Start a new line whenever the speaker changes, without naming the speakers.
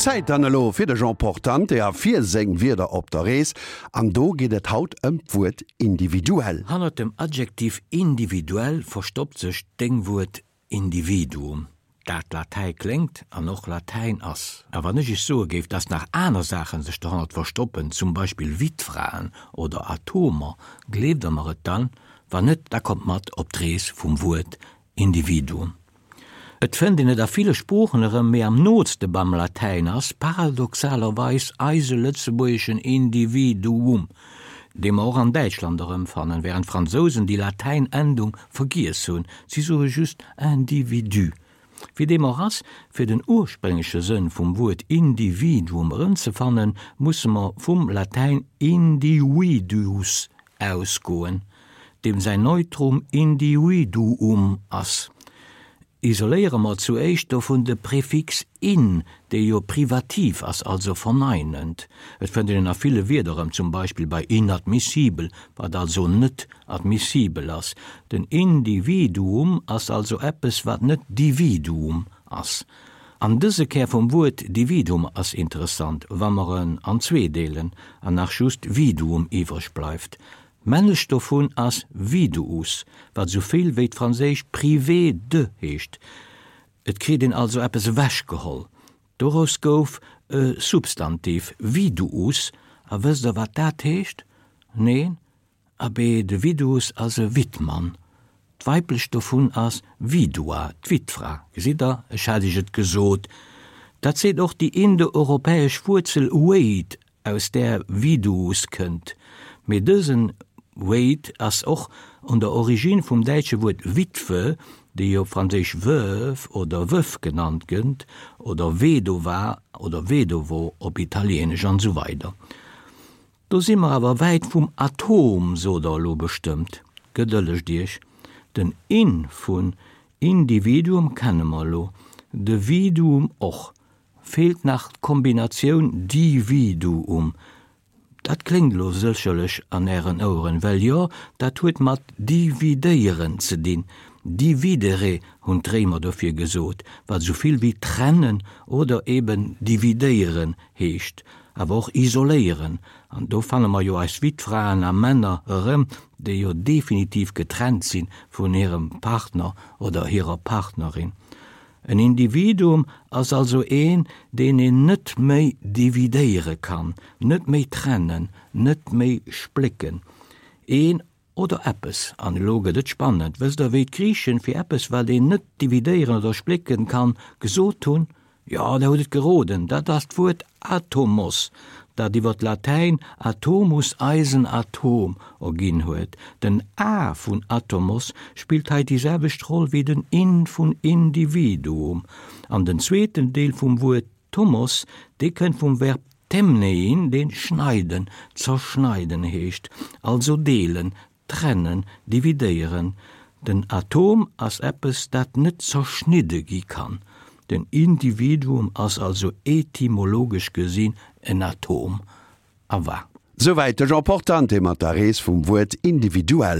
Zäit dann elo fir de Jean Portante a fir seng Wierder op der Rees. An do geet et haut ëm d'Wuert individuell.
Hannert dem Adjektiv individuell verstoppt sech d'Déngwuert Individuum, dat Latäi kléngt an och Latäin ass. A wann ech iech soe géif, dass nach aner Saachen sech dohannert verstoppen, zum Beispill Wittfraen oder Atomer, gleeft der mer et dann? Wann net, da kommt mat op d'Rees vum Wuert Individuum. Et fënnt een et a ville Sproochen erëm, mee am nootste beim Latäin ass paradoxalerweis eise lëtzebuergeschen Individuum, dee mer och an Däitschland erëmfannen, wärend d'Fransousen déi Latäin-Endung vergiess hunn, si soe just individu. Wéi deem och ass, fir den urspréngleche Sënn vum Wuert Individuum erëmzefannen, musse mer vum Latäin individuus ausgoen, deem säin Neutrum individuum ass. Isoléiere mer zuéischt dovun de Prefix in, dee jo privativ ass, also verneinend. Et fënnt een en a ville Wierder erëm, zum Beispill bei inadmissibel, wat also net admissibel ass. Den Individuum ass also eppes, wat net Dividuum ass. An dëse Kär vum Wuert Dividuum ass interessant, wa mer en an zwee deelen an nach just Viduum iwwreg bleift. D'Männlecht dovun ass Viduus, wat esou vill wéi d'franséisch privé de heescht. Et kritt een also eppes ewechgeholl. Doraus gouf e Substantiv, Viduus, a wësst der wat dat heescht? Neen? Abee, de Viduus ass e Wittmann. D'Weiblecht dovun ass Vidua, d'Wittfra. Gesitt der, ech hat iech et gesot. Dat seet och déi indoeuropäesch Wuerzel wade aus där Viduus kënnt, mee dësen Wade ass och un der Origine vum däitsche Wuert Witwe, déi op Franséisch veuve oder veuf genannt gëtt, oder vedova oder vedovo op Italieenesch an esou weider. Do si mer awer wäit vum Atom, sot der elo bestëmmt. Gedëllegt Iech, den in vun Individuum kenne mer elo, de viduum och, Feelt nach d'Kombinatioun Dividuum. Dat kléngt elo sécherlech an Ären Oueren, well jo, dat huet mat dividéieren ze dinn. Dividere hunn d'Réimer dofir gesot, wat esou vill wéi trennen oder eben dividéieren heescht, awer och isoléieren. An do fanne mer jo eis Wittfraen a männer erëm, déi jo definitiv getrennt si vun hirem Partner oder hirer Partnerin. En Individuum ass also een, deen een net méi dividéiere kann, net méi trennen, net méi splécken. Een oder eppes, an elo gëtt et spannend, wësst Der, wéi d'Griichen fir eppes, wat een net dividéieren oder splécken kann, gesot hunn? Jo, Der hutt et geroden, dat ass d'Wuert Atomos, dat iwwer d'Latäin atomus eisen Atom erginn huet. Den a vun atomos spillt hei déi selwecht Roll wéi den in vun individuum. An den zweeten Deel vum Wuert tomos, dee kënnt vum Verb temnein, dee schneiden, zerschneiden heescht, also deelen, Trennen, dividéieren. Den Atom ass eppes, dat net zerschnidde gi kann. Den Individuum ass also etymologesch gesinn en Atom. A wa.
Souwäit de Jean Portante mat der Rees vum Wuert individuell.